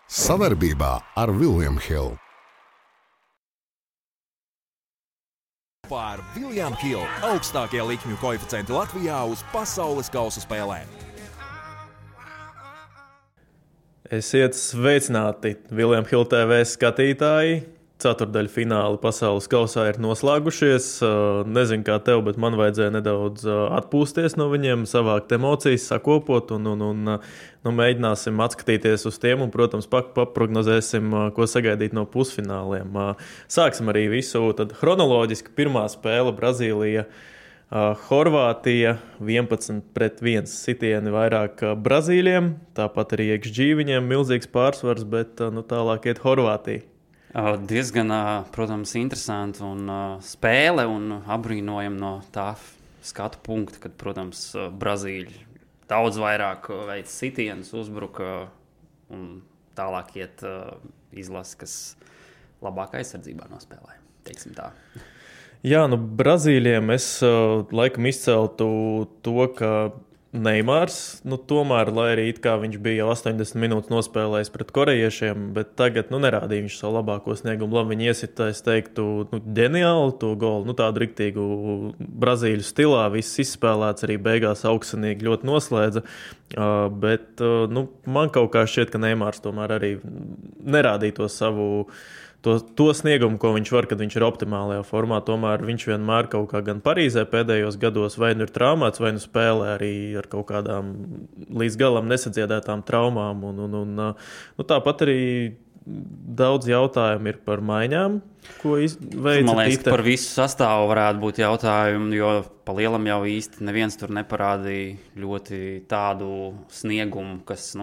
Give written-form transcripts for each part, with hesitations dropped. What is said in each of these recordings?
Savarbībā ar William Hill. Par William Hill augstākie likmju koeficienti Latvijā uz pasaules kausa spēlēm. Esiet sveicināti, William Hill TV skatītāji. Ceturdaļu fināli pasaules kausā ir noslēgušies. Nezinu, kā tev, bet man vajadzēja nedaudz atpūsties no viņiem, savākt emocijas, sakopot un mēģināsim atskatīties uz tiem un, protams, paprognozēsim, ko sagaidīt no pusfināliem. Sāksim arī visu tad chronoloģiski. Pirmā spēle Brazīlija. Horvātija 11-1 sitieni vairāk Brazīļiem, tāpat arī XG viņiem milzīgs pārsvars, bet tālāk iet Horvātija. Diezgan, protams, interesanti un spēle un apbrīnojam no tā skatu punkta, kad, protams, Brazīļi daudz vairāk veic sitienus, uzbruka un tālāk iet izlase, kas labāk aizsardzībā nospēlē, teiksim tā. Jā, Brazīļiem es laikam izceltu to, ka Neimārs, tomēr, lai arī it kā viņš bija jau 80 minūtes nospēlējis pret korejiešiem, bet tagad nerādīja viņš savu labāko sniegumu. Labi, viņi iesita, es teiktu, ģeniāli to golu, tādu riktīgu brazīļu stilā, viss izspēlēts, arī beigās augstsanīgi ļoti noslēdza, bet man kaut kā šķiet, ka Neimārs tomēr arī nerādīja to savu to sniegumu, ko viņš var, kad viņš ir optimālajā formā. Tomēr viņš vienmēr kaut kā gan Parīzē pēdējos gados vai ir traumēts, vai spēlē arī ar kaut kādām līdz galam nesadziedētām traumām. Tāpat arī daudz jautājumu ir par maiņām, ko veica. Man liekas, ka par visu sastāvu varētu būt jautājumi, jo pa lielam jau īsti neviens tur neparādīja ļoti tādu sniegumu, kas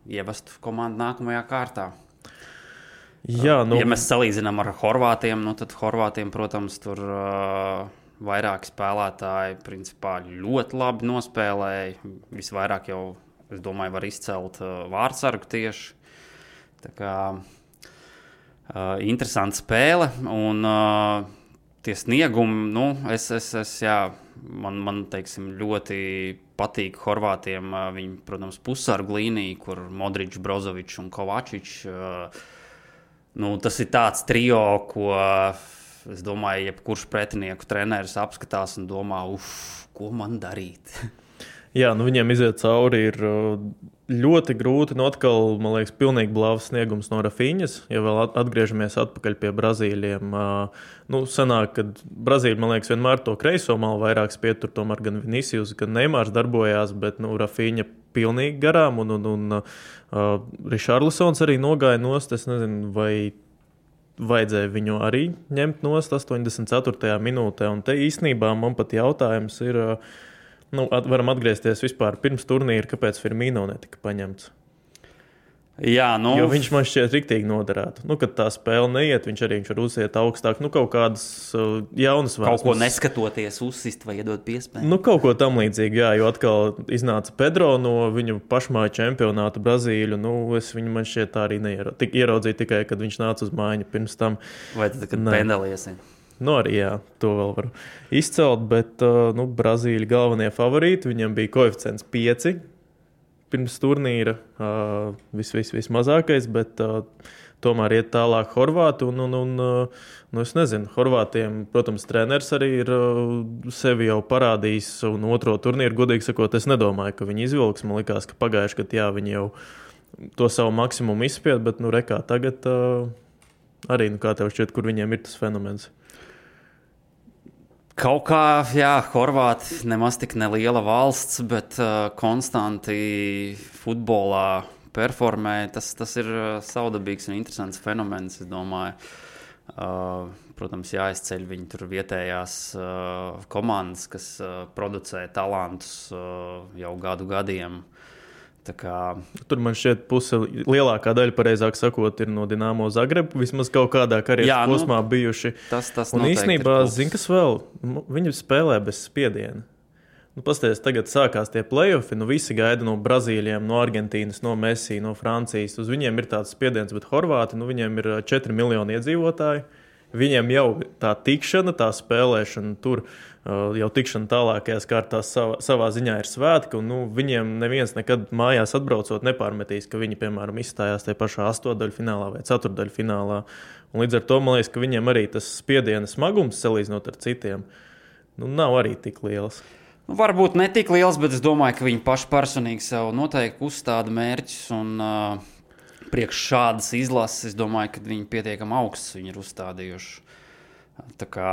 ievestu komandu nākamajā kārtā. Jā, ja mēs salīdzinām ar Horvātiem, tad Horvātiem, protams, tur vairāki spēlētāji principā ļoti labi nospēlēja. Visvairāk jau, es domāju, var izcelt vārdsargu tieši. Tā kā interesanta spēle un tie sniegumi, man teiksim, ļoti patīk Horvātiem. Viņi, protams, pussargu līnija, kur Modričs, Brozovičs un Kovačičs. Tas ir tāds trio, ko, es domāju, jebkurš pretinieku treneris apskatās un domā, ko man darīt? Jā, viņiem iziet cauri ir ļoti grūti. Atkal, man liekas, pilnīgi blāvs sniegums no Rafiņas. Ja vēl atgriežamies atpakaļ pie Brazīļiem, sanāk, ka Brazīļi, man liekas, vienmēr to kreiso malu vairāk spietur, tomēr gan Vinicius, gan Neimārs darbojās, bet Rafiņa pilnīgi garām un Richarlisons arī nogāja nost. Es nezinu, vai vajadzēja viņu arī ņemt nost 84. minūtē. Un te īstenībā man pat jautājums ir, varam atgriezties vispār pirms turnīra, kāpēc Firmino netika paņemts. Jā, jo viņš man šķiet riktīgi noderētu. Kad tā spēle neiet, viņš var uziet augstāk. Kaut kādas jaunas vēsmas. Kaut ko neskatoties uzsist vai iedot piespēju. Kaut ko tam līdzīgi, jā, jo atkal iznāca Pedro no viņu pašmāju čempionāta Brazīļu. Es viņu man šķiet tā arī ieraudzīju tikai, kad viņš nāca uz mājiņu pirms tam. Vai tad, kad pendeliesi? Arī jā, to vēl varu izcelt, bet Brazīļi galvenie favorīti, viņam bija koeficients 5. Pirms turnīra vismazākais, bet tomēr iet tālāk Horvāti. Es nezinu, Horvātiem, protams, treneris arī ir sevi jau parādījis un otro turnīru, godīgi sakot, es nedomāju, ka viņi izvilks. Man likās, ka pagājuši, kad viņi jau to savu maksimumu izspied, bet rekā tagad arī, kā tev šķiet, kur viņiem ir tas fenomens? Kaut kā, jā, Horvāti nemaz tik neliela valsts, bet konstanti futbolā performē. Tas ir savdabīgs un interesants fenomens, es domāju. Protams, jāizceļ viņi tur vietējās komandas, kas producē talantus jau gadiem. Tur man šķiet lielākā daļa, pareizāk sakot, ir no Dinamo Zagrebu, vismaz kaut kādā karjeras posmā bijuši. Tas un īstenībā, zini, kas vēl, viņi spēlē bez spiediena. Pasties, tagad sākās tie play-offi, visi gaida no Brazīļiem, no Argentīnas, no Messi, no Francijas. Uz viņiem ir tāds spiediens, bet Horvāti, viņiem ir 4 miljoni iedzīvotāji. Viņiem jau tā tikšana, tā spēlēšana tur jau tikšana tālākajās kārtās savā ziņā ir svētki, un viņiem neviens nekad mājās atbraucot nepārmetīs, ka viņi, piemēram, izstājās tajā pašā astotdaļfinālā vai ceturtdaļfinālā. Un līdz ar to, man liekas, ka viņiem arī tas spiediena smagums, salīdzinot ar citiem, nav arī tik liels. Varbūt ne tik liels, bet es domāju, ka viņi paši personīgi sev noteikti uzstāda mērķus, un priekš šādas izlases, es domāju, ka viņi pietiekami augsts viņi ir uzstādījuši. Tā kā...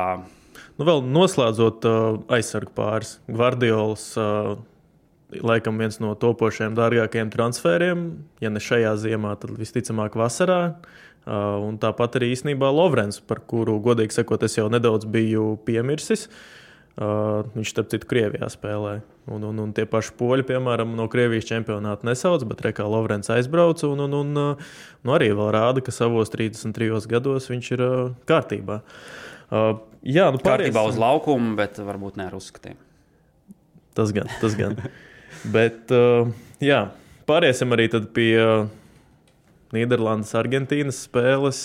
Vēl noslēdzot aizsargu pāris, Gvardiols laikam viens no topošajiem dārgākajiem transferiem, ja ne šajā ziemā, tad visticamāk vasarā. Un tāpat arī īstenībā Lovrens, par kuru, godīgi sakot, es jau nedaudz biju piemirsis. Viņš, starp citu, Krievijā spēlē. Un tie paši poļi, piemēram, no Krievijas čempionāta nesauc, bet rekā Lovrens aizbrauca un arī vēl rāda, ka savos 33 gados viņš ir kārtībā. Kārtībā uz laukumu, bet varbūt ne ar uzskatiem. Tas gan. Bet, pāriesim arī tad pie Nīderlandes, Argentīnas spēles.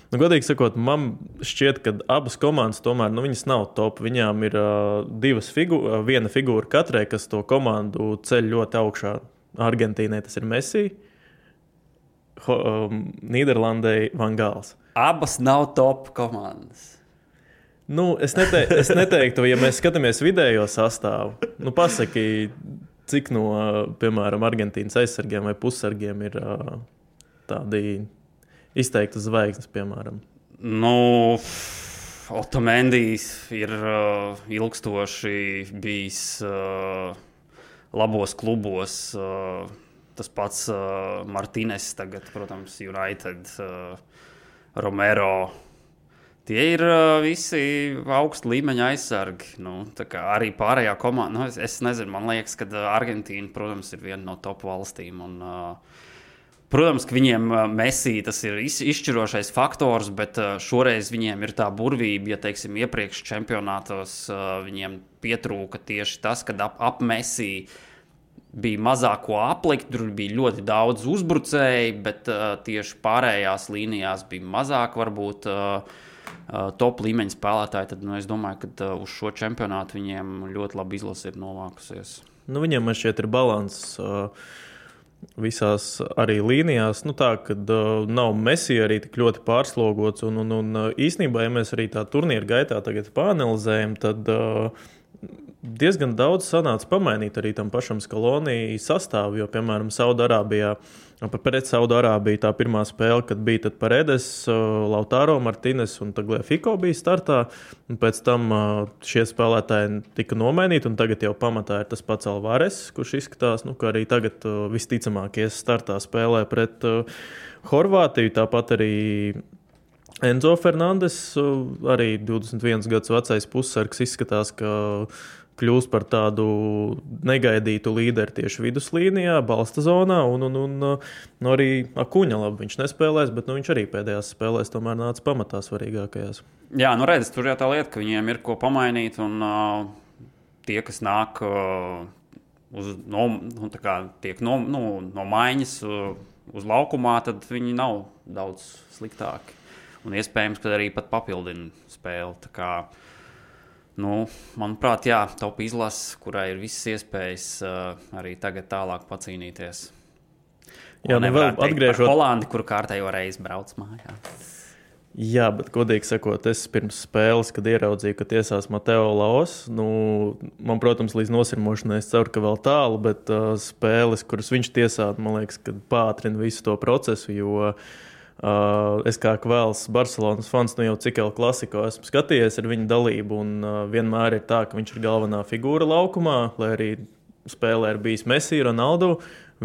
Godīgi sakot, man šķiet, ka abas komandas tomēr viņas nav top. Viņām ir viena figūra katrai, kas to komandu ceļ ļoti augšā. Argentīnai tas ir Messi, Nīderlandei Van Gals. Abas nav top komandas. Es neteiktu, ja mēs skatāmies vidējo sastāvu, pasaki, cik no, piemēram, Argentīnas aizsargiem vai pussargiem ir tādi izteikti zvaigznes, piemēram. Otamendijs ir ilgstoši bijis labos klubos. Tas pats Martínez tagad, protams, United, Romero. Tie ir visi augsta līmeņa aizsargi. Tā kā arī pārējā komanda. Es nezinu, man liekas, ka Argentīna, protams, ir viena no top valstīm. Un, protams, ka viņiem Messi tas ir izšķirošais faktors, bet šoreiz viņiem ir tā burvība, ja teiksim iepriekš čempionātos viņiem pietrūka tieši tas, kad ap Messi bija mazāk ko aplikt, tur bija ļoti daudz uzbrucēji, bet tieši pārējās līnijās bija mazāk varbūt top līmeņa spēlētāji, tad es domāju, ka uz šo čempionātu viņiem ļoti labi izlase ir novākusies. Viņiem man šķiet ir balans visās arī līnijās, tā, kad nav Messi arī tik ļoti pārslogots, un īstenībā, ja mēs arī tā turnīra gaitā tagad pāanalizējam, tad diezgan daudz sanāca pamainīt arī tam pašam Scaloni sastāvu, jo, piemēram, pret Saudārābiju tā pirmā spēle, kad bija tad Paredes, Lautaro Martínez un Tagliafico bija startā, un pēc tam šie spēlētāji tika nomainīti, un tagad jau pamatā ir tas pats Alvarez, kurš izskatās, ka arī tagad visticamāk ies startā spēlē pret Horvātiju, tāpat arī Enzo Fernandes, arī 21 gadus vecais pussargs, izskatās, ka kļūst par tādu negaidītu līderi tieši viduslīnijā, balsta zonā, un arī Akuņa labi viņš nespēlēs, bet viņš arī pēdējās spēlēs tomēr nāca pamatā svarīgākajās. Jā, redz, tur jau tā lieta, ka viņiem ir ko pamainīt, un tie, kas nāk tiek no maiņas uz laukumā, tad viņi nav daudz sliktāki. Un iespējams, ka arī pat papildina spēli. Tā kā, manuprāt, top izlase, kurai ir visas iespējas arī tagad tālāk pacīnīties. Jā, vēl atgriežot Holandi, kur kārtējo reizi brauc mājā. Jā, bet, godīgi sakot, es pirms spēles, kad ieraudzīju, ka tiesās Mateo Laos, man, protams, līdz nosirmošanai es ceru, ka vēl tālu, bet spēles, kuras viņš tiesātu, man liekas, ka pātrina visu to procesu, jo es kā Kvēls Barcelonas fans, jau cik El Clasico esmu skatījies ar viņu dalību, un vienmēr ir tā, ka viņš ir galvenā figūra laukumā, lai arī spēlē ir bijis Messi, Ronaldo,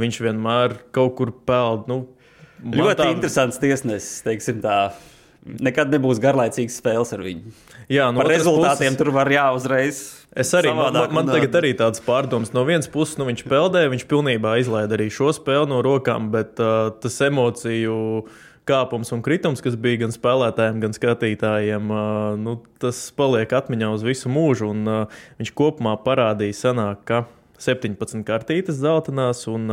viņš vienmēr kaut kur peld. Ļoti interesants tiesnesis, teiksim tā. Nekad nebūs garlaicīgas spēles ar viņu. Jā, par rezultātiem tur var uzreiz. Es arī, man tagad arī tāds pārdoms. No vienas puses, viņš peldē, viņš pilnībā izlaida arī šo spēli no rokām, bet tas emociju kāpums un kritums, kas bija gan spēlētājiem, gan skatītājiem, tas paliek atmiņā uz visu mūžu, un viņš kopumā parādīja sanāk, ka 17 kartītes zeltainās, un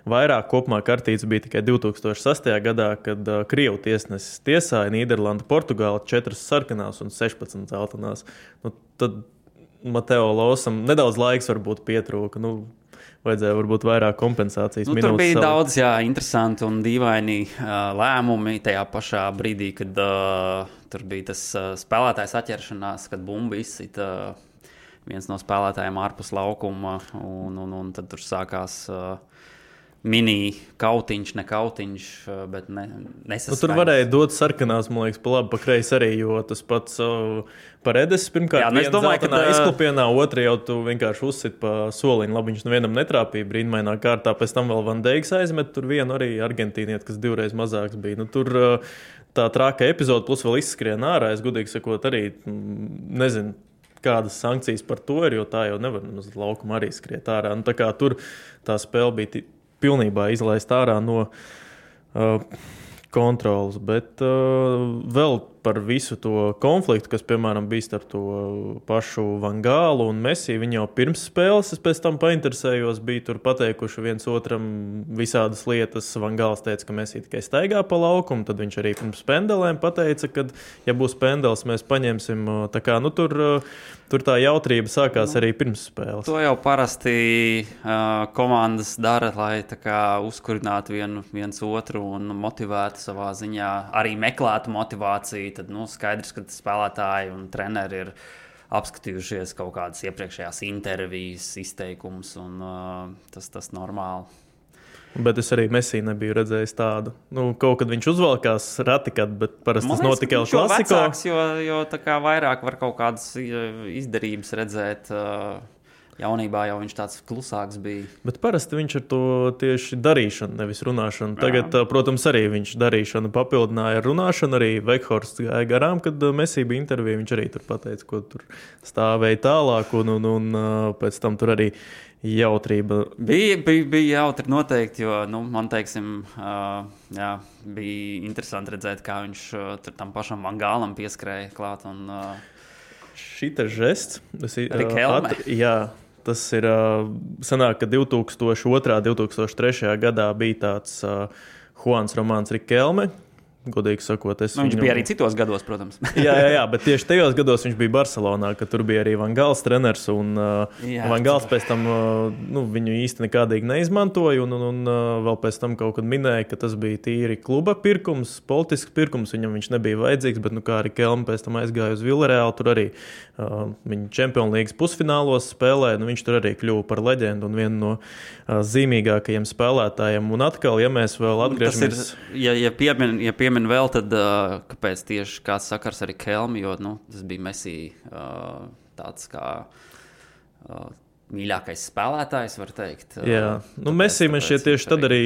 vairāk kopumā kartītes bija tikai 2006. gadā, kad Krievu tiesnesis tiesāja Nīderlanda, Portugāla 4 sarkanās un 16 zeltainās. Tad Mateo Losam nedaudz laiks varbūt pietrūka. Vajadzēja varbūt vairāk kompensācijas minūtes. Tur bija daudz interesanti un dīvaini lēmumi tajā pašā brīdī, kad tur bija tas spēlētājs atķeršanās, kad bumba izsita viens no spēlētājiem ārpus laukuma, un tad tur sākās mini kautiņš, ne kautiņš, bet nesaskaņas. Tur varēja dot sarkanās, man liekas, pa labi, pa kreisi arī, jo tas pats Paredes pirmkārt viena zeltainā izklupienā, otra jau tu vienkārši uzsit pa soliņu. Labi, viņš nevienam netrāpīja brīnumainā kārtā, pēc tam vēl Van Deiks aizmet, tur vienu arī argentīnieti, kas 2 reizes mazāks bija. Tur tā trāka epizoda plus vēl izskrien ārā, es gudīgi sakot arī, nezinu, kādas sankcijas par to ir, jo tā jau nevar uz laukuma arī skriet ārā. Tā kā tur tā spēle bija pilnībā izlaist ārā no kontrolas, bet vēl par visu to konfliktu, kas, piemēram, bija starp to pašu Van Gālu un Messi. Viņi jau pirms spēles, es pēc tam painteresējos, bija tur pateikuši viens otram visādas lietas. Van Gāls teica, ka Messi tikai staigā pa laukumu, tad viņš arī pirms pendelēm pateica, ka, ja būs pendels, mēs paņemsim. Tā kā, tur tā jautrība sākās arī pirms spēles. To jau parasti komandas dara, lai tā kā uzkurinātu viens otru un motivētu savā ziņā, arī meklētu motivāciju. Tad skaidrs, ka spēlētāji un treneri ir apskatījušies kaut kādas iepriekšējās intervijas, izteikumus, un tas normāli. Bet es arī Messi nebiju redzējis tādu. Kaut kad viņš uzvalkās ratikāt, bet parasti tas notika jau klasiko. Vecāks, jo tā kā vairāk var kaut kādas izdarības redzēt. Jaunībā jau viņš tāds klusāks bija. Bet parasti viņš ar to tieši darīšanu, nevis runāšanu. Tagad, protams, arī viņš darīšanu papildināja ar runāšanu. Arī Vekhorsts gāja garām, kad Messi bija intervija. Viņš arī tur pateica, ko tur stāvēja tālāk, un pēc tam tur arī jautrība. Bija jautri noteikti, jo, man teiksim, bija interesanti redzēt, kā viņš tur tam pašam Van Gālam pieskrēja klāt. Šitas žests. Rikelme. Tas ir sanāk, ka 2002. 2003. gadā bija tāds Juans Romāns Rikelme. Godīgi sakot, viņš bija arī citos gados, protams. jā, bet tieši tajos gados viņš bija Barcelonā, kad tur bija arī Van Gāls treneris, un Van Gāls pēc tam viņu īsti nekādīgi neizmantoja, un vēl pēc tam kaut kad minēja, ka tas bija tīri kluba pirkums, politisks pirkums, viņam viņš nebija vajadzīgs, bet kā arī Kelme pēc tam aizgāja uz Villarreal, tur arī viņa Champions Leagues pusfinālos spēlē, viņš tur arī kļuva par leģendu un vienu no zīmīgākajiem spēlētājiem. Un atkal, ja mēs vēl atgriežamies... Ja piemin vēl, tad kāpēc tieši kāds sakars arī Kelmi, jo tas bija Messi tāds kā mīļākais spēlētājs, var teikt. Jā, Messi man šķiet tieši tad arī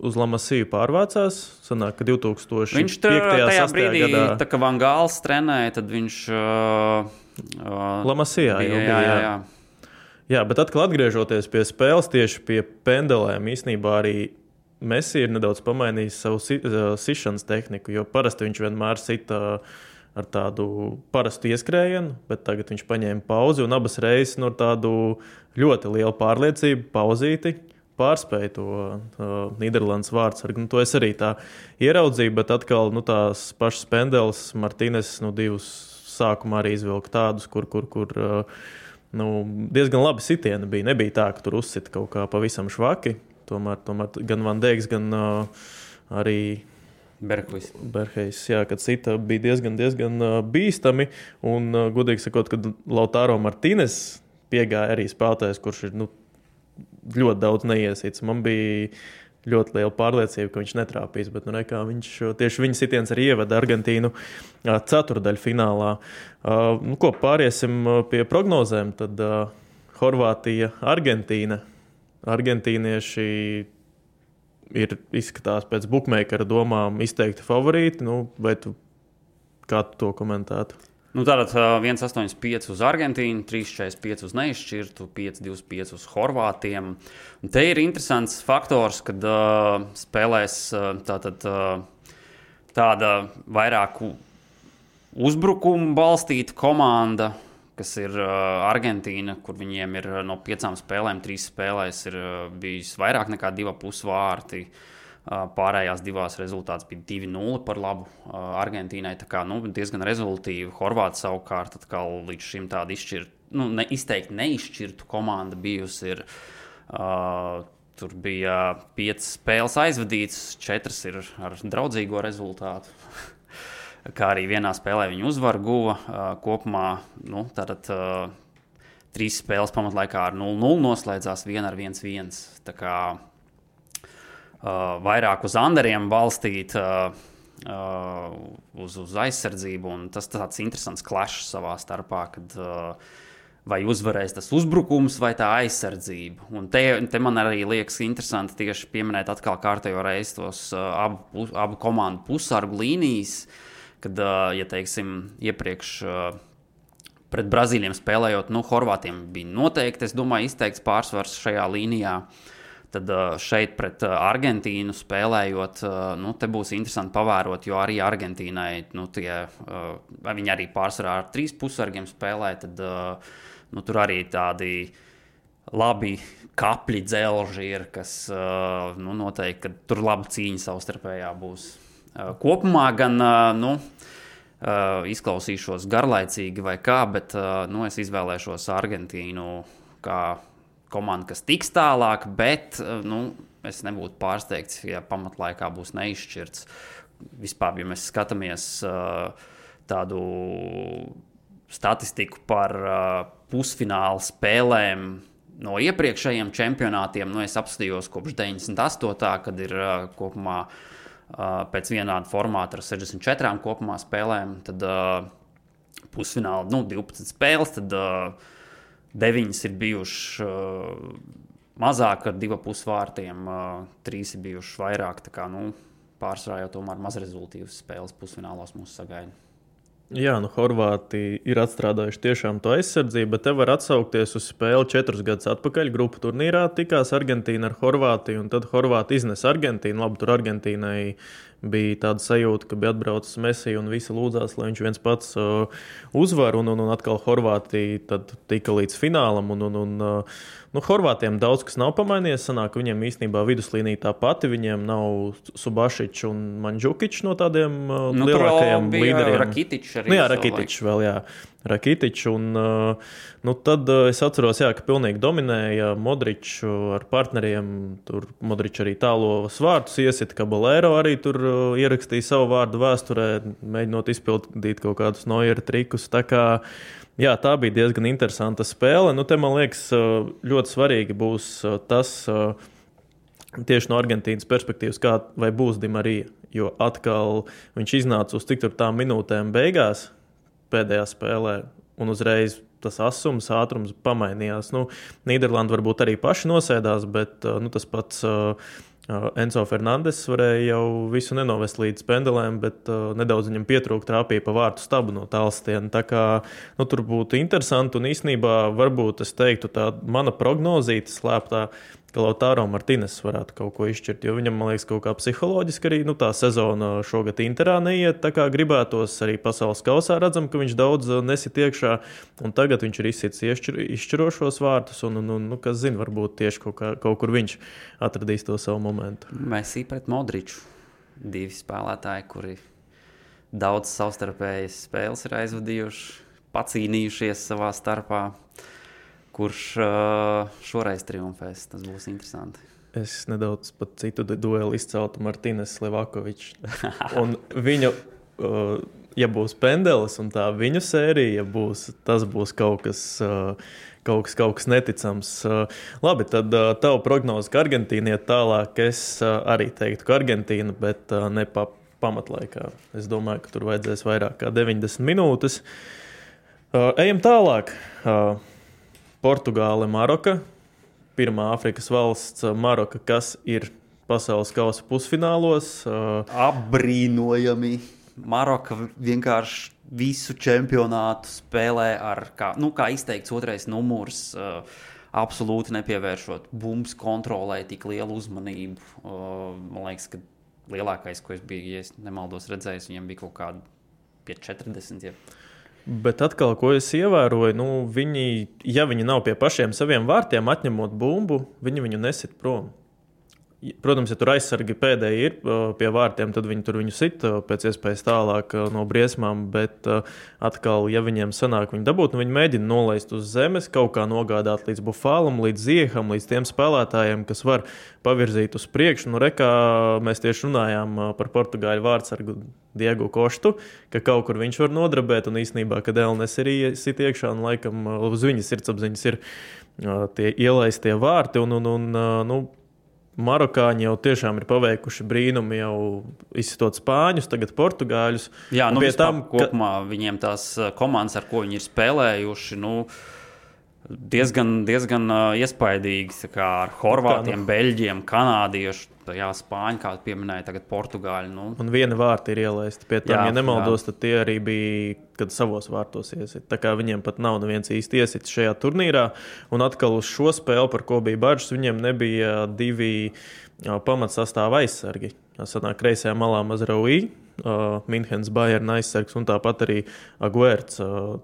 uz La Masiju pārvācās. Sanāk, ka 2005. Viņš tajā brīdī, tā kā Van Gāls trenēja, tad viņš... La Masijā jau bija, jā. Jā, bet atkal atgriežoties pie spēles, tieši pie pendelēm, īstenībā arī Messi ir nedaudz pamainījis savu sišanas tehniku, jo parasti viņš vienmēr sita ar tādu parastu ieskrējienu, bet tagad viņš paņēma pauzi un abas reizes no tādu ļoti lielu pārliecību pauzīti pārspēja to Nīderlandes vārdsargu. To es arī tā ieraudzīju, bet atkal tās pašas pendeles Martīnes divus sākumā arī izvilka tādus, kur diezgan labi sitieni bija. Nebija tā, ka tur uzsita kaut kā pavisam švaki. Tomēr gan Van Deiks, gan arī Berhejs, kad sita bija diezgan bīstami. Un, godīgi sakot, kad Lautaro Martīnes piegāja arī spēlētājs, kurš ir ļoti daudz neiesīts. Man bija ļoti liela pārliecība, ka viņš netrāpīs, bet tieši viņa sitiens arī ieveda Argentīnu ceturdaļfinālā. Pāriesim pie prognozēm, tad Horvātija, Argentīna. Argentīnieši izskatās pēc bukmeikara domām izteikti favorīti, vai kā tu to komentētu? Tātad 1,85 uz Argentīnu, 3,45 uz neizšķirtu, 5,25 uz Horvātiem. Un te ir interesants faktors, kad spēlēs tāda vairāk uzbrukumu balstīta komanda, kas ir Argentīna, kur viņiem ir no 5 spēlēm, 3 spēlēs ir bijis vairāk nekā 2,5 vārti. Pārējās divās rezultāts bija 2-0 par labu Argentīnai. Tā kā diezgan rezultīvi. Horvāti savukārt atkal līdz šim tādu izteikti neizšķirtu komanda bijusi ir. Tur bija 5 spēles aizvadītas, 4 ir ar draudzīgo rezultātu. Kā arī vienā spēlē viņi uzvaru guva. Kopumā tātad 3 spēles pamatlaikā ar 0-0 noslēdzās, 1 ar 1-1. Tā kā vairāk uz underiem balstīt uz aizsardzību, un tas tāds interesants clash savā starpā, kad vai uzvarēs tas uzbrukums vai tā aizsardzība. Un te man arī liekas interesanti tieši pieminēt atkal kārtējo reizi tos abu komandu pusargu līnijas, kad, ja teiksim, iepriekš pret Brazīļiem spēlējot, Horvātiem bija noteikti, es domāju, izteikts pārsvars šajā līnijā. Tad šeit pret Argentīnu spēlējot, te būs interesanti pavērot, jo arī Argentīnai, viņi arī pārsvarā ar 3 pusargiem spēlē, tad tur arī tādi labi kapļi dzelži ir, kas noteikti, ka tur laba cīņa savstarpējā būs. Kopumā gan, izklausīšos garlaicīgi vai kā, bet es izvēlēšos Argentīnu kā komanda, kas tiks tālāk, bet es nebūtu pārsteigts, ja pamatlaikā būs neizšķirts. Vispār, ja mēs skatāmies tādu statistiku par pusfinālu spēlēm no iepriekšējiem čempionātiem, es apskatījos kopš 98. kad ir kopumā pēc vienāda formāta ar 64 kopumā spēlēm, tad pusfināla 12 spēles, tad 9 ir bijuši mazāk ar 2,5 vārtiem, 3 ir bijuši vairāk, tā kā pārsvarā jau tomēr mazrezultīvas spēles pusfinālos mūs sagaida. Jā, Horvāti ir atstrādājuši tiešām to aizsardzību, bet te var atsaukties uz spēli 4 gadus atpakaļ. Grupu turnīrā tikās Argentīna ar Horvātiju, un tad Horvāti iznes Argentīnu. Labi, tur Argentīnai bija tāda sajūta, ka bija atbraucis Messi un visi lūdzās, lai viņš viens pats uzvar, un atkal Horvātija tad tika līdz finālam, Horvātiem daudz kas nav pamainījies, sanāk, viņiem īstenībā viduslīnija tā pati, viņiem nav Subašičs un Mandžukičs no tādiem lielākajiem līderiem. Rakitičs arī. Jā, Rakitičs vēl, jā. Rakitičs, un tad es atceros, ka pilnīgi dominēja Modričs ar partneriem, tur Modričs arī tālos vārtus iesit, Caballero arī tur ierakstīja savu vārdu vēsturē, mēģinot izpildīt kaut kādus Neuera trikus, tā kā jā, tā bija diezgan interesanta spēle. Te, man liekas, ļoti svarīgi būs tas tieši no Argentīnas perspektīvas, vai būs Di Marija, jo atkal viņš iznāca uz tik tur tām minūtēm beigās pēdējā spēlē, un uzreiz tas asums, ātrums pamainījās. Nīderlanda varbūt arī paši nosēdās, bet tas pats Enzo Fernandes varēja jau visu nenovest līdz pendelēm, bet nedaudz viņam pietrūka, trāpīja pa vārtu stabu no tālstiena. Tā kā tur būtu interesanti, un īstenībā varbūt es teiktu tā mana prognozīte slēptā, ka Lautaro Martīnes varētu kaut ko izšķirt, jo viņam, man liekas, kaut kā psiholoģiski arī tā sezona šogad Interā neiet, tā kā gribētos arī pasaules kausā redzam, ka viņš daudz nesit iekšā, un tagad viņš ir izsits izšķirošos vārtus, un kas zina, varbūt tieši kaut kur viņš atradīs to savu momentu. Messi pret Modriču, 2 spēlētāji, kuri daudz savstarpējas spēles ir aizvadījuši, pacīnījušies savā starpā. Kurš šoreiz triumfēs, tas būs interesanti. Es nedaudz pat citu dueli izceltu Martīnes Levakovičs. Un viņu, ja būs pendelis un tā viņu sērija, tas būs kaut kas neticams. Labi, tad tavu prognozi, ka Argentīna iet tālāk, es arī teiktu, ka Argentīna, bet ne pamatlaikā. Es domāju, ka tur vajadzēs vairāk kā 90 minūtes. Ejam tālāk. Portugāle, Maroka, pirmā Āfrikas valsts Maroka, kas ir pasaules kausa pusfinālos. Apbrīnojami. Maroka vienkārši visu čempionātu spēlē ar, kā izteikts otrais numurs, absolūti nepievēršot bumbas kontrolē tik lielu uzmanību. Man liekas, ka lielākais, ko es biju, ja es nemaldos redzējis, viņam bija kaut kādi pie 40. Bet atkal, ko es ievēroju, ja viņi nav pie pašiem saviem vārtiem, atņemot bumbu, viņi viņu nesit prom. Protams, ja tur aizsargi pēdēji ir pie vārtiem, tad viņi tur viņu sit pēc iespējas tālāk no briesmām, bet atkal, ja viņiem sanāk viņu dabūt, viņi mēģina nolaist uz zemes, kaut kā nogādāt līdz Bufālam, līdz Zieham, līdz tiem spēlētājiem, kas var pavirzīt uz priekšu. Nu, rekā mēs tieši runājām par portugāļu vārtsargu Diegu Koštu, ka kaut kur viņš var nodrabēt, un īstenībā, kad Elnes ir sit iekšā, un laikam uz viņas sirdsapziņas ir tie ielaistie vārti, un marokāņi jau tiešām ir paveikuši brīnumi, jau izsitot spāņus, tagad portugāļus. Jā, nu vispār kopumā viņiem tās komandas, ar ko viņi ir spēlējuši, diezgan iespaidīgi, tā kā ar horvātiem, beļģiem, kanādiešu, jā, spāņi, kā pieminēja, tagad portugāļi. Un viena vārta ir ielaista. Pie tam, ja nemaldos, tad tie arī bija, kad savos vārtos iesit. Tā kā viņiem pat nav neviens īsti iesits šajā turnīrā. Un atkal uz šo spēli, par ko bija bažas, viņiem nebija 2 pamatsastāva aizsargi. Sanāk kreisajā malā Mazraoui, Minhenes Bayern aizsargs, un tāpat arī Aguerts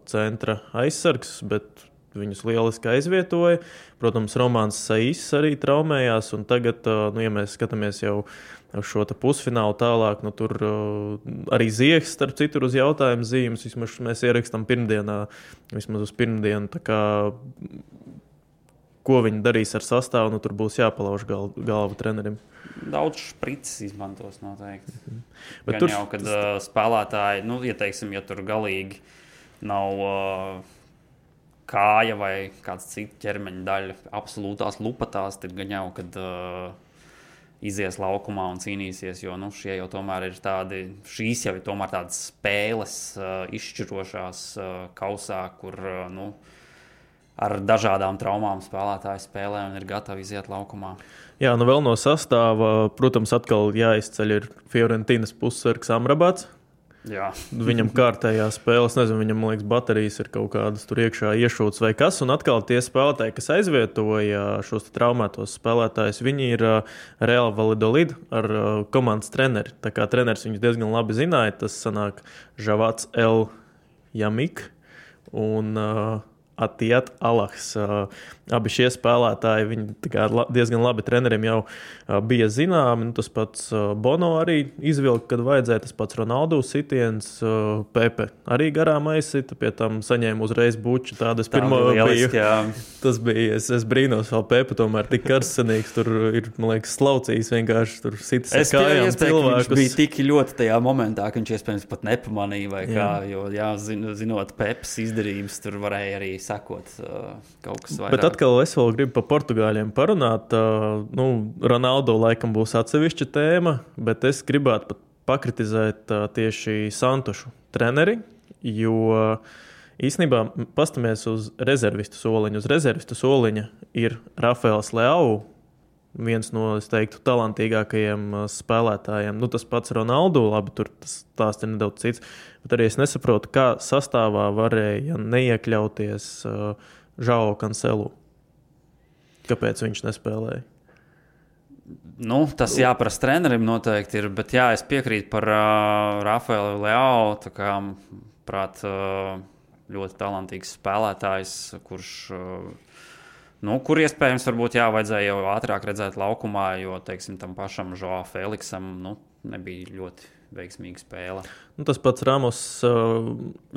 centra aizsargs, bet viņus lieliski aizvietoja. Protams, Romāns Sais arī traumējās, un tagad, ja mēs skatāmies jau šo pusfinālu tālāk, tur arī Ziehs, starp citu, uz jautājumu zīmes, vismaz mēs ierakstam pirmdienā, vismaz uz pirmdienu, tā kā, ko viņi darīs ar sastāvu, tur būs jāpalauž galva trenerim. Daudz špricis izmantos noteikti. Bet tur jau, kad spēlētāji, ieteiksim, ja tur galīgi nav kāja vai kāds cits ķermeņa daļa absolūtās lupatās, tad gan jau, kad izies laukumā un cīnīsies, jo šie jau tomēr ir šīs jau ir tomēr tādas spēles izšķirošās kausā, kur ar dažādām traumām spēlētāji spēlē un ir gatavi iziet laukumā. Jā, vēl no sastāva, protams, atkal jāizceļ ir Fiorentinas pussargs Amrabats. Jā. Viņam kārtējā spēle, es nezinu, viņam, man liekas, baterijas ir kaut kādas tur iekšā iešūtas vai kas, un atkal tie spēlētāji, kas aizvietoja šos traumētos spēlētājus, viņi ir Real Valladolid ar komandas treneri. Tā kā treneris viņus diezgan labi zināja, tas sanāk Žavats El Jamik un Atiat Alahs. Abi šie spēlētāji, viņi diezgan labi treneriem jau bija zināmi. Tas pats Bono arī izvilka, kad vajadzēja. Tas pats Ronaldo sitiens, Pepe arī garām aizsita, pie tam saņēma uzreiz buču. Tādas pirmo biju. Tas bija, es brīnos vēl Pepe, tomēr tik karsenīgs. Tur ir, man liekas, slaucījis vienkārši tur sitas ar kājām cilvēkus. Viņš bija tik ļoti tajā momentā, ka viņš iespējams pat nepamanīja vai kā, jo, zinot Pepes izdarības, tur varēja arī sakot kaut kas vairāk. Bet atkal es vēl gribu par portugāļiem parunāt. Ronaldo laikam būs atsevišķa tēma, bet es gribētu pat pakritizēt tieši Santušu treneri, jo īstenībā pastamies uz rezervistu soliņu. Uz rezervistu soliņa ir Rafaels Leao, viens no, es teiktu, talantīgākajiem spēlētājiem. Tas pats Ronaldo, labi, tur tas stāsts ir nedaudz cits, bet arī es nesaprotu, kā sastāvā varēja neiekļauties Žao Cancelu. Kāpēc viņš nespēlēja? Tas jāprasa trenerim noteikti ir, bet jā, es piekrītu par Rafaelu Leao, tā kā, prāt, ļoti talantīgs spēlētājs, kurš, kur iespējams varbūt vajadzēja jau ātrāk redzēt laukumā, jo, teiksim, tam pašam Joao Feliksam, nebija ļoti veiksmīga spēle. Tas pats Ramos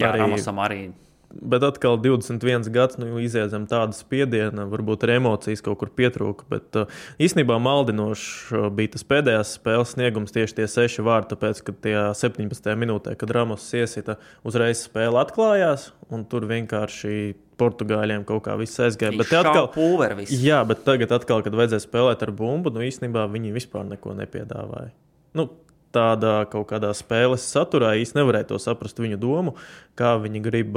Ramosam arī. Bet atkal 21 gads, iziedzam tādu spiedienu, varbūt ar emocijas kaut kur pietrūka, bet īstenībā maldinoši bija tas pēdējās spēles sniegums tieši tie 6 vārti, tāpēc, ka tie 17. minūtē, kad Ramos iesita, uzreiz spēle atklājās, un tur vienkārši portugāļiem kaut kā viss aizgāja. Bet atkal, jā, bet tagad atkal, kad vajadzēja spēlēt ar bumbu, īstenībā viņi vispār neko nepiedāvāja. Tādā kaut kādā spēles saturā īsti nevarēja to saprast viņu domu, kā viņi grib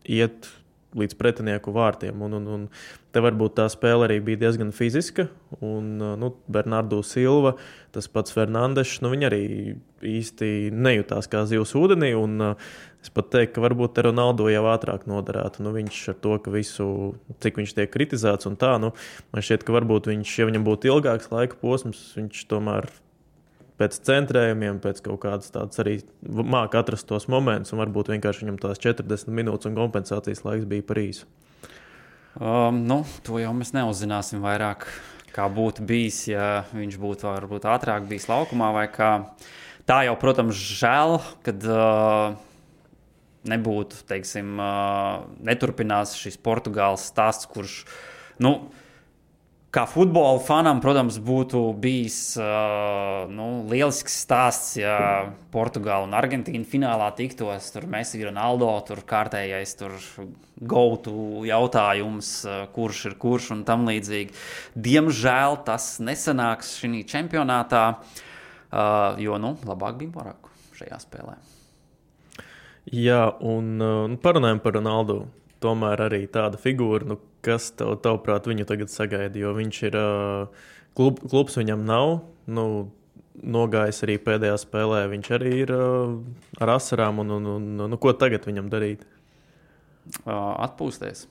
iet līdz pretinieku vārtiem. Un te varbūt tā spēle arī bija diezgan fiziska. Un Bernardo Silva, tas pats Fernandešs, viņi arī īsti nejūtās kā zivs ūdenī. Un es pat teiktu, ka varbūt te Ronaldo jau ātrāk noderētu. Viņš ar to, ka visu, cik viņš tiek kritizēts un tā, man šķiet, ka varbūt viņš, ja viņam būtu ilgāks laika posms, viņš tomēr pēc centrējumiem, pēc kaut kādas tādas arī māca atrast tos momentus, un varbūt vienkārši viņam tās 40 minūtes un kompensācijas laiks bija par īsu. To jau mēs neuzzināsim vairāk, kā būtu bijis, ja viņš būtu varbūt ātrāk bijis laukumā vai kā. Tā jau, protams, žēl, kad nebūtu, teiksim, neturpinās šis Portugāles stāsts, kurš, kā futbola fanam, protams, būtu bijis lielisks stāsts, ja Portugāla un Argentīna finālā tiktos, tur Messi, Ronaldo, tur kārtējais, tur go-to jautājums, kurš ir kurš un tam līdzīgi. Diemžēl tas nesanāks šī čempionātā, jo, labāk bija Moraku šajā spēlē. Jā, un parunājam par Ronaldu. Tomēr arī tāda figūra, kas tavuprāt viņu tagad sagaida, jo viņš ir klubs viņam nav, nogājis arī pēdējā spēlē, viņš arī ir ar asarām, un ko tagad viņam darīt? Atpūsties.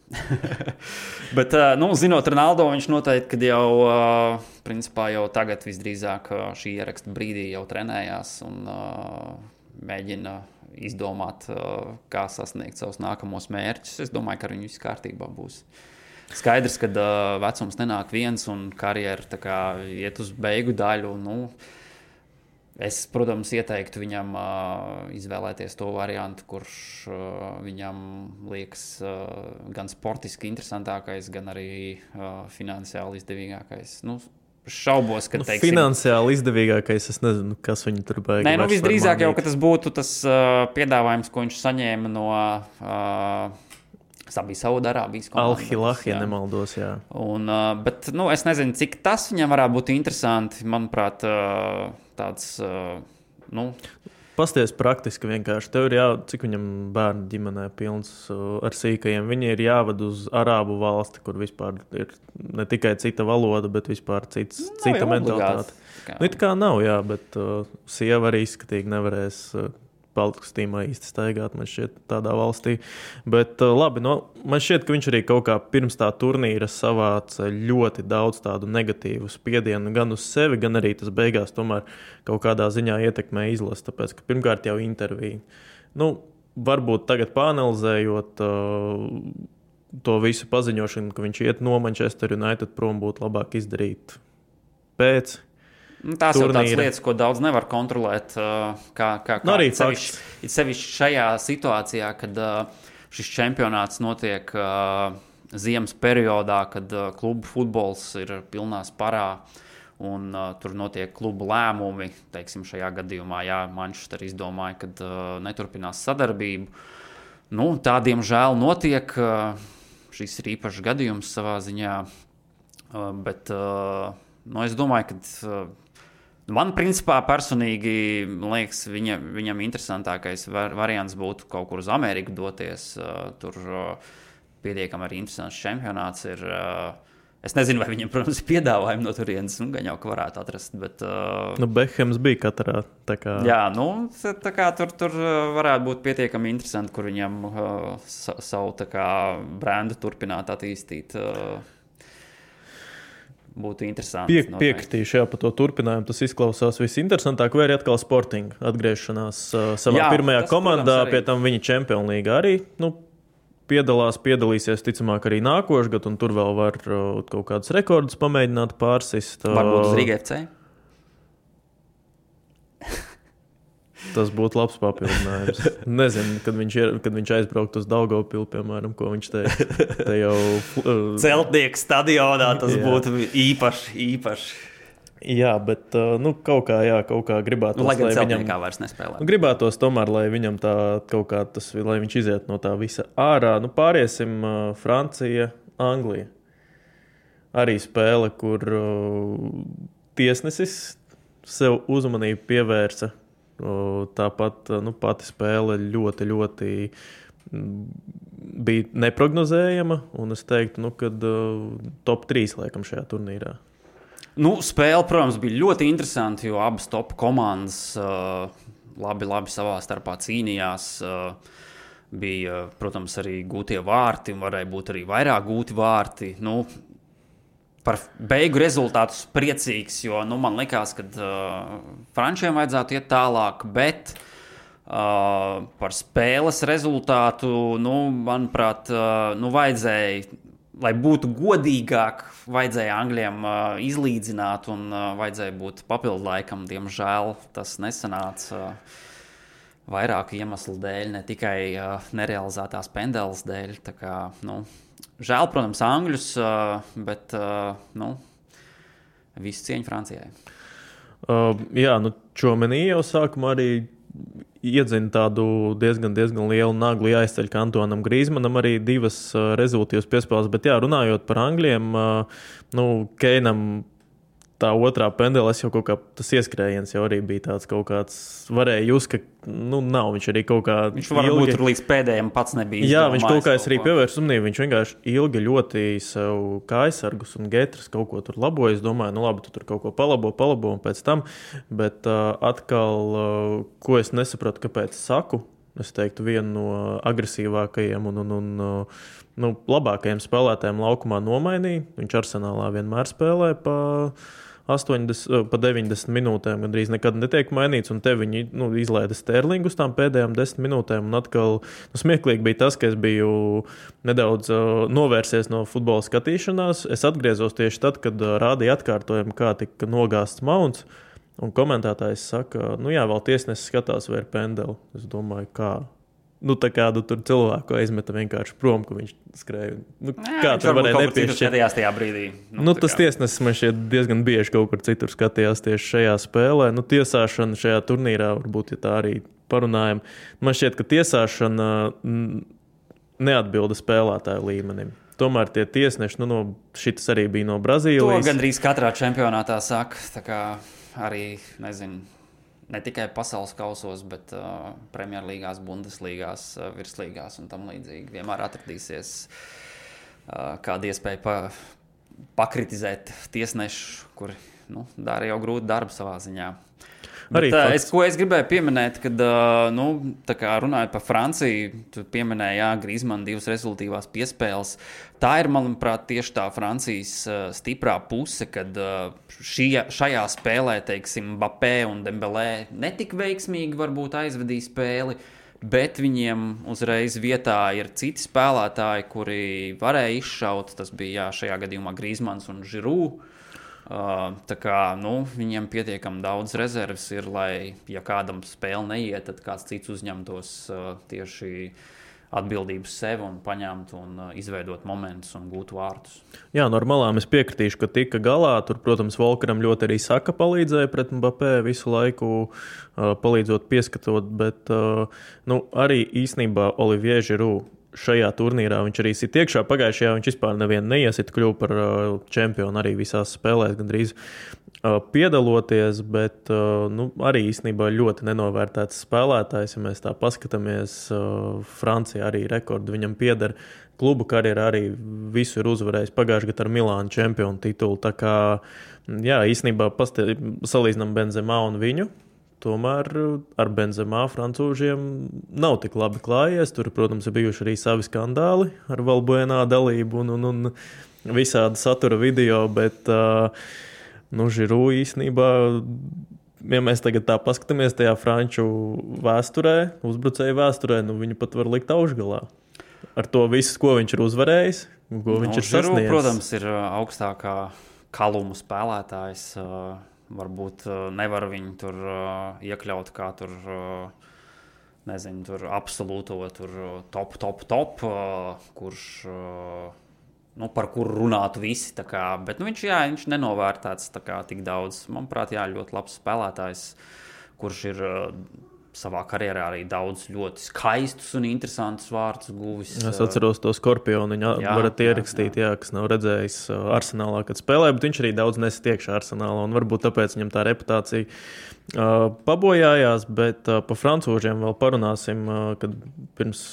Bet, zinot Ronaldo, viņš noteikti, kad jau, principā jau tagad visdrīzāk šī ieraksta brīdī jau trenējās un mēģina izdomāt, kā sasniegt savus nākamos mērķus. Es domāju, ka ar viņu viss kārtībā būs. Skaidrs, ka vecums nenāk viens un karjera tā kā iet uz beigu daļu. Es, protams, ieteiktu viņam izvēlēties to variantu, kurš viņam liekas gan sportiski interesantākais, gan arī finansiāli izdevīgākais. Šaubos, ka finansiāli izdevīgākais, es nezinu, kas viņu tur baigi. Nē, visdrīzāk jau, ka tas būtu tas piedāvājums, ko viņš saņēma no Saudārābijas komandas. Al-Hilal, ja nemaldos, jā. Bet, es nezinu, cik tas viņam varētu būt interesanti. Manuprāt, tāds, Pasties praktiski vienkārši. Tev ir cik viņam bērnu ģimenē pilns ar sīkajiem. Viņi ir jāved uz arābu valsti, kur vispār ir ne tikai cita valoda, bet vispār cita mentalitāte. Tā kā nav, jā, bet sieva arī izskatīgi nevarēs paltkastīmā īsti staigāt, man šķiet, tādā valstī. Bet labi, man šķiet, ka viņš arī kaut kā pirms tā turnīra savāca ļoti daudz tādu negatīvu spiedienu gan uz sevi, gan arī tas beigās tomēr kaut kādā ziņā ietekmē izlasi, tāpēc, ka pirmkārt jau intervija. Varbūt tagad pāanalizējot to visu paziņošanu, ka viņš iet no Manchester United prom, būtu labāk izdarīt pēc tās turnīra. Jau tādas lietas, ko daudz nevar kontrolēt, kā sevišķi šajā situācijā, kad šis čempionāts notiek ziemas periodā, kad klubu futbols ir pilnā sparā un tur notiek klubu lēmumi. Teiksim, šajā gadījumā, Manchester izdomāja, kad neturpinās sadarbību. Tā, diemžēl, notiek. Šis ir īpašs gadījums savā ziņā, bet es domāju, ka man, principā, personīgi, liekas, viņam interesantākais variants būtu kaut kur uz Ameriku doties. Tur pietiekami arī interesants čempionāts ir. Es nezinu, vai viņam, protams, ir piedāvājumi no turienes, gan jau, ka varētu atrast, bet... Bekhams bija katrā, tā kā... Jā, tā kā tur varētu būt pietiekami interesanti, kur viņam savu tā kā brendu turpināt attīstīt. Būtu interesanti. Piekritīšu, par to turpinājumu. Tas izklausās visinteresantāk, vai arī atkal Sporting atgriešanās savā pirmajā komandā, pie tam viņa Champions League arī, piedalīsies, ticamāk, arī nākošais gads, un tur vēl var kaut kādus rekordus pamēģināt pārsist. Varbūt uz Riga FC? Tas būtu labs papildinājums. Nezinu, kad viņš aizbrauktu uz Daugavpilu, piemēram, ko viņš teica. Te jau... Celtnieku stadionā tas būtu īpaši. Jā, bet kaut kā gribētos, lai gan celtniekā vairs nespēlē. Gribētos tomēr, lai viņam tā kaut kā lai viņš iziet no tā visa ārā. Pāriesim Francija, Anglija. Arī spēle, kur tiesnesis sev uzmanību pievērsa. Tāpat pati spēle ļoti, ļoti bija neprognozējama, un es teiktu, ka top 3 laikam šajā turnīrā. Spēle, protams, bija ļoti interesanti, jo abas top komandas labi savā starpā cīnījās. Bija, protams, arī gūtie vārti, un varēja būt arī vairāk gūti vārti. Par beigu rezultātu priecīgs, jo man likās, ka frančiem vajadzētu iet tālāk, bet par spēles rezultātu, manuprāt, vajadzēja lai būtu godīgāk, vajadzēja Angļiem izlīdzināt un vajadzēja būt papildu laikam. Diemžēl tas nesanāca vairāku iemeslu dēļ, ne tikai nerealizētās pendeles dēļ. Tā kā, žēl, protams, Angļus, bet visu cieņu Francijai. Jā, Čomenī jau sākumā arī iedzina tādu diezgan lielu naglu jāizceļ Antonam Grīzmanam arī 2 rezultīvas piespēles, bet jā, runājot par Angļiem, Keinam tā otrā pendeles jau kaut kā tas ieskrējiens jau arī bija tāds kaut kāds, varēja just, ka nav, viņš arī kaut kā viņš varbūt tur līdz pēdējiem pats nebija izdomājis. Jā, viņš kaut kā arī pievērš uzmanību, viņš vienkārši ilgi ļoti sev kājsargus un getras kaut ko tur laboja, es domāju, labi, tu tur kaut ko palabo un pēc tam, bet atkal, ko es nesapratu, kāpēc saku, es teiktu vienu no agresīvākajiem un labākajiem spēlētājiem laukumā nomainīja, viņš Arsenālā vienmēr spēlē pa 90 minūtēm gandrīz nekad netiek mainīts, un te viņi izlaida Sterlingu uz tām pēdējām 10 minūtēm, un atkal smieklīgi bija tas, ka es biju nedaudz novērsies no futbola skatīšanās. Es atgriezos tieši tad, kad rādīja atkārtojumu, kā tika nogāsts Mounts, un komentētājs saka, jā, vēl tiesnesis skatās vai ir pendeli. Es domāju, kā? Tā kādu tur cilvēku aizmeta vienkārši prom, ka viņš skrēja. Kā tur varēja nepiešķirt? Skatījās tajā brīdī. Tas tiesnesis man šķiet diezgan bieži kaut kur citur skatījās tieši šajā spēlē. Tiesāšana šajā turnīrā, varbūt, ja tā arī parunājam, man šķiet, ka tiesāšana neatbilda spēlētāju līmenim. Tomēr tie tiesneši, šitas arī bija no Brazīlijas. To gandrīz katrā čempionātā saka, tā kā arī, nezinu, ne tikai pasaules kausos, bet Premjerlīgās, Bundeslīgās, virslīgās un tam līdzīgi. Vienmēr atradīsies kāda iespēja pakritizēt tiesnešu, kuri dara jau grūtu darbu savā ziņā. Bet, ko es gribēju pieminēt, kad tā kā runājot par Franciju, tu pieminēji, Grīzmana 2 rezultīvās piespēles. Tā ir, manuprāt, tieši tā Francijas stiprā puse, kad šajā spēlē, teiksim, Mbappé un Dembélé netik veiksmīgi varbūt aizvedīja spēli, bet viņiem uzreiz vietā ir citi spēlētāji, kuri varēja izšaut. Tas bija šajā gadījumā Grīzmans un Giroud. Tā kā viņiem pietiekami daudz rezerves ir, lai, ja kādam spēle neiet, tad kāds cits uzņemtos tieši atbildības sev un paņemt un izveidot momentus un gūt vārtus. Jā, normālām es piekritīšu, ka tika galā. Tur, protams, Volkeram ļoti arī Saka palīdzēja pret Mbappé visu laiku, palīdzot pieskatot, bet arī īsnībā Olivier Giroud šajā turnīrā viņš arī sit iekšā. Pagājušajā viņš vispār nevienu neiesit, kļuva par čempionu arī visās spēlēs gandrīz piedaloties, bet arī īstenībā ļoti nenovērtēts spēlētājs. Ja mēs tā paskatāmies, Francija arī rekordu viņam pieder. Klubu karjerā arī visu ir uzvarējis pagājušajā gadā ar Milānu čempionu titulu. Tā kā, jā, īstenībā salīdzinām Benzemā un viņu. Tomēr ar Benzemā francūžiem nav tik labi klājies. Tur, protams, ir bijuši arī savi skandāli ar Valbuenā dalību un visādi satura video, bet Giroud īstenībā, ja mēs tagad tā paskatāmies tajā franču vēsturē, uzbrucēju vēsturē, viņu pat var likt augšgalā. Ar to visu, ko viņš ir uzvarējis, ko viņš ir sasniedzis. Giroud, protams, ir augstākā kaluma spēlētājs. Varbūt nevar viņu tur iekļaut kā tur, nezinu, tur absolūto tur top, kurš, par kuru runātu visi, tā kā, bet viņš nenovērtēts tā kā tik daudz. Manuprāt, ļoti labs spēlētājs, kurš ir savā karjerā arī daudz ļoti skaistus un interesantus vārdus guvis. Es atceros to Skorpionu, viņa varat ierakstīt, kas nav redzējis Arsenālā, kad spēlē, bet viņš arī daudz nesit iekšā Arsenālā, un varbūt tāpēc viņam tā reputācija pabojājās, bet pa francūžiem vēl parunāsim, kad pirms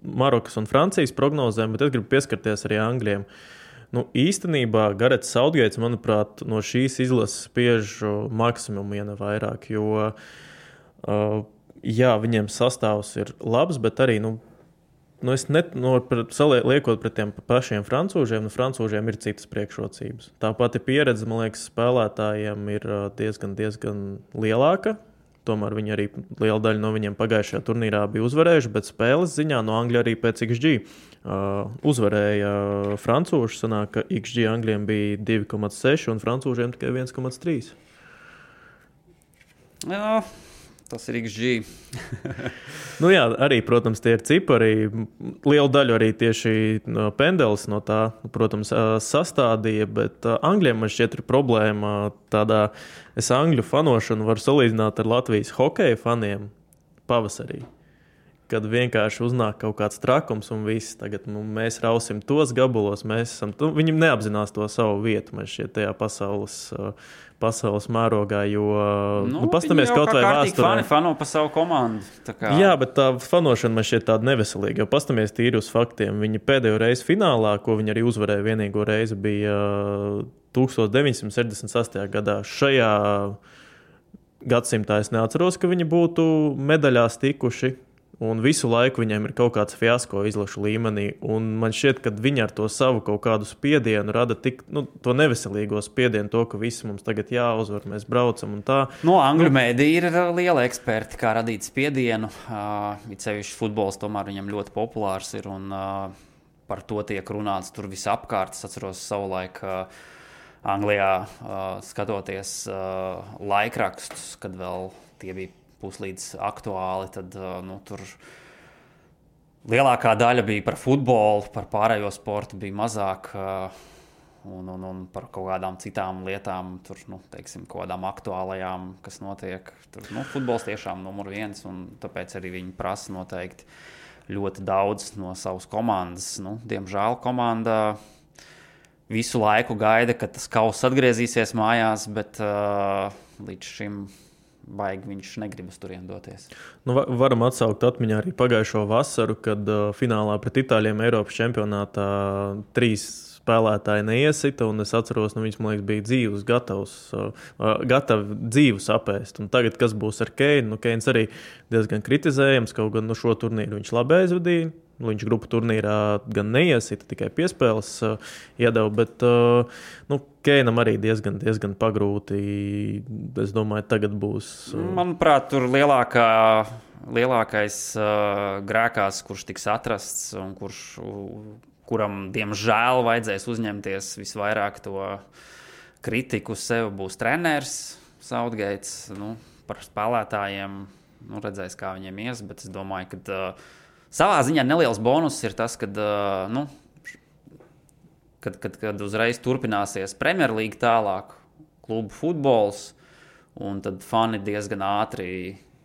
Marokas un Francijas prognozēm, bet es gribu pieskarties arī Angļiem. Īstenībā Garets Southgates, manuprāt, no šīs izlases spiež maksimumu, ja ne vairāk, jo viņiem sastāvs ir labs, bet arī, liekot pret tiem pašiem francūžiem, francūžiem ir citas priekšrocības. Tā pati pieredze, man liekas, spēlētājiem ir diezgan lielāka tomēr viņi arī liela daļa no viņiem pagājušajā turnīrā bija uzvarējuši, bet spēles ziņā no Angļu arī pēc XG uzvarēja francūši. Sanāk, ka XG Angļiem bija 2,6 un francūžiem tikai 1,3. Jā, tas ir XG. Nu jā, arī, protams, tie ir cipari. Lielu daļu arī tieši Pendelis no tā, protams, sastādīja, bet Angļiem man šķiet ir problēma tādā, es Angļu fanošanu varu salīdzināt ar Latvijas hokeja faniem pavasarī. Kad vienkārši uznāk kaut kāds trakums un viss, tagad mēs rausim tos gabalos, viņi neapzinās to savu vietu, man šķiet, tajā pasaules mērogā, jo, pastamies kaut vai vēsturē. Viņi fano pa savu komandu. Jā, bet tā fanošana man šķiet tāda neveselīga, jo pastamies tīri uz faktiem. Viņi pēdējo reizi finālā, ko viņi arī uzvarēja vienīgo reizi, bija 1968. gadā. Šajā gadsimtā es neatceros, ka viņi būtu medaļās tikuši. Un visu laiku viņiem ir kaut kāds fiasko izlašu līmenī. Un man šķiet, ka viņi ar to savu kaut kādu spiedienu rada tik, to neveselīgo spiedienu, to, ka visi mums tagad jāuzvar, mēs braucam un tā. Angļu mēdī ir liela eksperti, kā radīt spiedienu. It sevišķi futbols tomēr viņam ļoti populārs ir un par to tiek runāts tur visapkārt. Es atceros savulaik Anglijā skatoties laikrakstus, kad vēl tie bija puslīdz aktuāli, tad tur lielākā daļa bija par futbolu, par pārējo sportu bija mazāk un par kaut kādām citām lietām, tur, teiksim, kaut kādām aktuālajām, kas notiek. Tur, futbols tiešām numur 1, un tāpēc arī viņi prasa noteikti ļoti daudz no savas komandas. Diemžēl komanda visu laiku gaida, ka tas kauss atgriezīsies mājās, bet līdz šim baigi viņš negribas turien doties. Varam atsaukt atmiņā arī pagājušo vasaru, kad finālā pret Itāļiem Eiropas čempionātā 3 spēlētāji neiesita, un es atceros, viņš, man liekas, bija gatavi dzīvu sapēst. Un tagad, kas būs ar Keinu? Keins arī diezgan kritizējams, kaut gan šo turnīru viņš labi aizvadīja. Viņš grupu turnīrā gan neiesita, tikai piespēles iedeva, bet Keinam arī diezgan pagrūti. Es domāju, tagad būs. Manuprāt, tur lielākais grēkās, kurš tiks atrasts un kuram, diemžēl, vajadzēs uzņemties visvairāk to kritiku sev, būs treneris Southgates. Par spēlētājiem redzēs, kā viņiem ies, bet es domāju, ka savā ziņā neliels bonus ir tas, kad uzreiz turpināsies Premjerlīga tālāk, klubu futbols, un tad fani diezgan ātri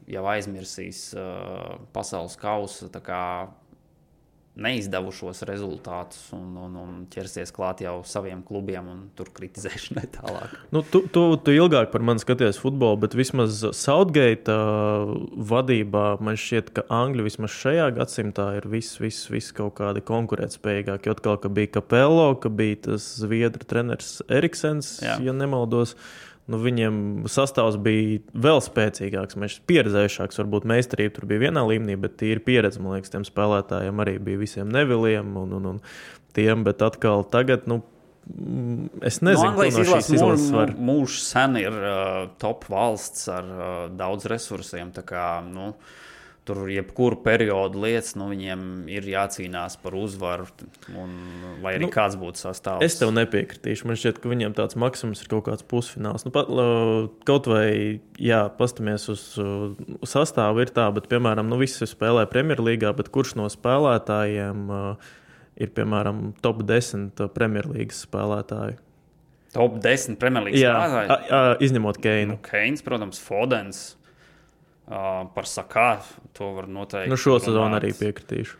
jau aizmirsīs pasaules kausa neizdevušos rezultātus un ķersies klāt jau saviem klubiem un tur kritizēšanai tālāk. Tu ilgāk par mani skaties futbolu, bet vismaz Southgate vadībā man šķiet, ka Angļi vismaz šajā gadsimtā ir viss kaut kādi konkurētspējīgāki. Jo atkal, ka bija Capello, ka bija tas zviedru treneris Eriksens, ja nemaldos. Viņiem sastāvs bija vēl spēcīgāks, pieredzējušāks, varbūt meistarība tur bija vienā līmenī, bet tīri pieredze, man liekas, tiem spēlētājiem arī bija visiem Neviliem un tiem, bet atkal tagad, es nezinu, Anglijas izlases mūžs sen ir top valsts ar daudz resursiem, tā kā, tur jebkuru periodu lietas, viņiem ir jācīnās par uzvaru, lai arī kāds būtu sastāvs. Es tev nepiekritīšu. Man šķiet, ka viņiem tāds maksimums ir kaut kāds pusfināls. Kaut vai, pastamies uz sastāvu ir tā, bet, piemēram, visi spēlē Premjerlīgā, bet kurš no spēlētājiem ir, piemēram, top 10 Premjerlīgas spēlētāji? Top 10 Premjerlīgas spēlētāji? Jā, izņemot Keinu. Keins, protams, Fodens. Par Sakā to var noteikti. Šo sezonu arī piekritīšu.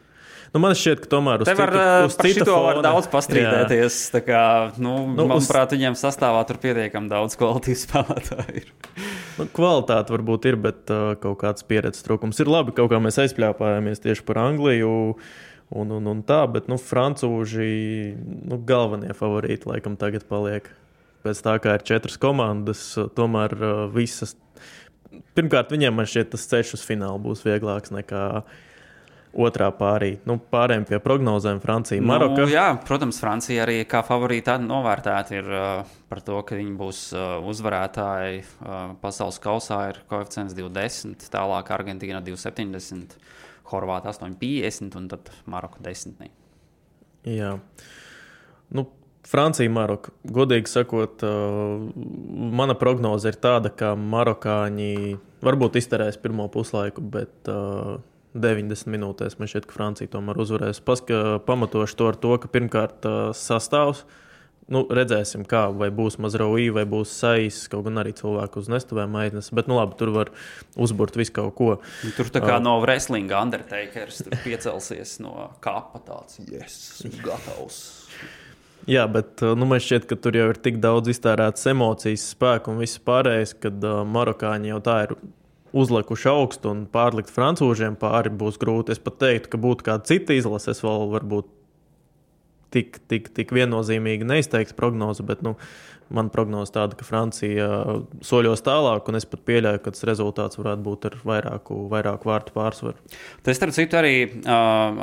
Man šķiet, ka tomēr uz citu fona var daudz pastrīdēties. Tā kā, manuprāt, viņiem sastāvā tur pietiekami daudz kvalitīvu spēlētāju ir. Kvalitāte varbūt ir, bet kaut kāds pieredzes trūkums ir labi. Kaut kā mēs aizpļāpājāmies tieši par Angliju un tā, bet francūži galvenie favorīti laikam tagad paliek. Pēc tā, kā ir 4 komandas, tomēr visas. Pirmkārt, viņiem man šķiet tas ceļš uz finālu būs vieglāks nekā otrā pārī. Pārējiem pie prognozēm Francija, Maroka. Jā, protams, Francija arī kā favorīta novērtēta ir par to, ka viņi būs uzvarētāji pasaules kausā ir koeficients 2,10, tālāk Argentīna 2,70, Horvāta 8,50 un tad Maroka 10. Jā. Francija, Maroka. Godīgi sakot, mana prognoze ir tāda, ka marokāņi varbūt izterēs pirmo puslaiku, bet 90 minūtēs man šķiet, ka Francija tomēr uzvarēs. Pamatošu to ar to, ka pirmkārt sastāvs. Redzēsim, kā, vai būs Mazraoui, vai būs Sais, kaut gan arī cilvēku uz nestuvēm aiznes. Bet, labi, tur var uzburt visu kaut ko. Tur tā kā no wrestlinga Undertakers tur piecelsies no kapa tāds. Yes, gatavs. Jā, bet man šķiet, ka tur jau ir tik daudz iztērētas emocijas, spēku un viss pārējais, kad marokāņi jau tā ir uzlikuši augstu un pārlikt francūžiem pāri būs grūti. Es pat teiktu, ka būtu kāda cita izlase, es vēl varbūt tik viennozīmīgi neizteikts prognozi, bet man prognoze tāda, ka Francija soļos tālāk, un es pat pieļauju, ka tas rezultāts varētu būt ar vairāku vārtu pārsvaru. Tas, starp citu, arī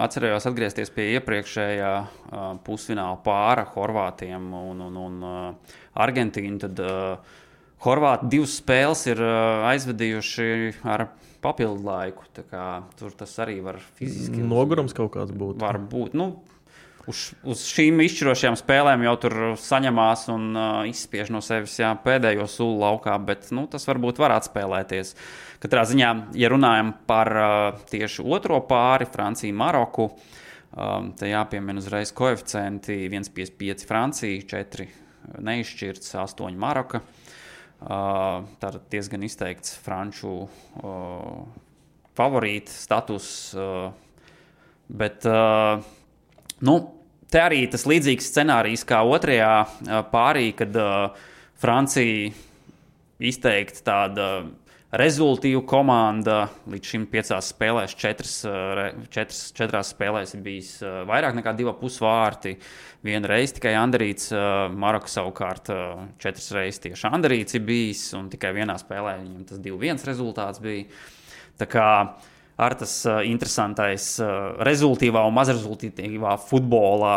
atcerējos atgriezties pie iepriekšējā pusfināla pāra Horvātiem un Argentīnu, tad Horvāti 2 spēles ir aizvedījuši ar papildu laiku. Tur tas arī var fiziski... Nogurums kaut kāds būt. Var būt. Uz šīm izšķirošajām spēlēm jau tur saņemās un izspiež no sevis pēdējo sulu laukā, bet tas varbūt var atspēlēties. Katrā ziņā, ja runājam par tieši otro pāri, Franciju, Maroku, te jāpiemina uzreiz koeficienti 1,55 Francija, 4 neizšķirts, 8 Maroka. Tātad diezgan izteikts franču favorīta status, bet te arī tas līdzīgs scenārijs kā otrajā pārī, kad Francija izteikti tāda rezultīva komanda, līdz šim 5 spēlēs, 4 spēlēs ir bijis vairāk nekā 2,5 vārti. 1 reize tikai Anderīts, Maroka savukārt 4 reizes tieši Anderīts ir bijis, un tikai 1 spēlē viņam tas 2-1 rezultāts bija. Tā kā ar tas interesantais rezultīvā un mazrezultīvā futbolā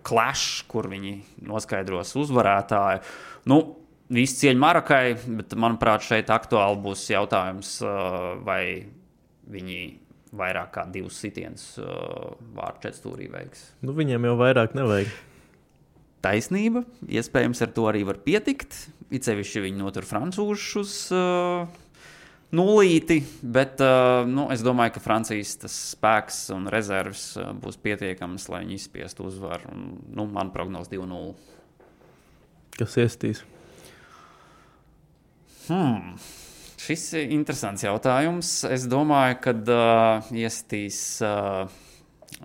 clash, kur viņi noskaidros uzvarētāju. Visi cieņa Marokai, bet, manuprāt, šeit aktuāli būs jautājums, vai viņi vairāk kā 2 sitienus vārtu četstūrī veiks. Viņiem jau vairāk nevajag. Taisnība, iespējams ar to arī var pietikt. It sevišķi viņi notur francūžus uz nulīti, bet es domāju, ka Francijas tas spēks un rezerves būs pietiekams, lai viņi izspiestu uzvaru. Man prognoz 2-0. Kas iestīs? Šis ir interesants jautājums. Es domāju, ka iestīs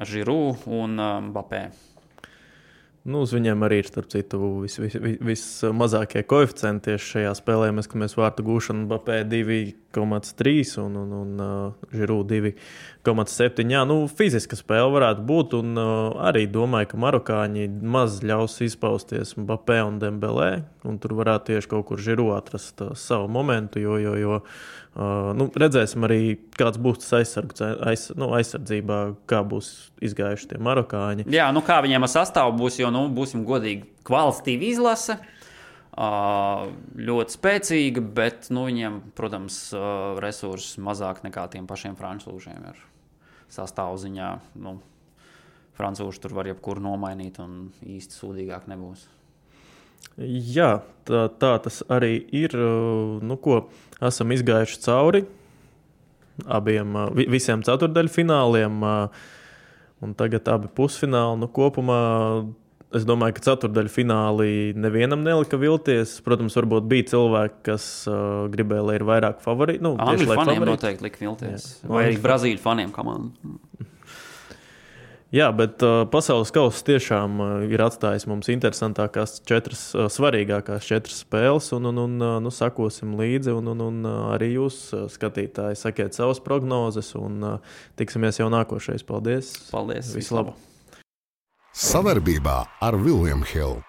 Giroud un Mbappé. Uz viņiem arī ir, starp citu, vismazākie koeficienti tieši šajā spēlē. Mēs skatāmies vārtu gūšanu Mbappé 2,3 un Giroud 2,7. Jā, fiziska spēle varētu būt, un arī domāju, ka marokāņi maz ļaus izpausties Mbappé un Dembelē, un tur varētu tieši kaut kur Giroud atrast savu momentu, jo redzēsim arī, kāds būs tas aizsardzībā, kā būs izgājuši tie marokāņi. Jā, kā viņiem ar sastāvu būs, jo, būsim godīgi, kvalitatīva izlase, ļoti spēcīga, bet, viņiem, protams, resursi mazāk nekā tiem pašiem francūžiem ir sastāvu ziņā. Francūži tur var jebkuru nomainīt un īsti sūdīgāk nebūs. Jā, tā tas arī ir. Esam izgājuši cauri visiem ceturdaļfināliem, un tagad abi pusfināli. Kopumā es domāju, ka ceturdaļfināli nevienam nelika vilties. Protams, varbūt bija cilvēki, kas gribēja, lai ir vairāk favorīti. Angļu faniem noteikti lika vilties. Jā. Vai arī Brazīļu faniem komandu. Jā, bet pasaules kauss tiešām ir atstājis mums interesantākās 4 svarīgākās 4 spēles, un sakosim līdzi, un arī jūs, skatītāji, sakiet savas prognozes, un tiksimies jau nākošais. Paldies! Paldies! Visu labu! Savarbībā ar William Hill.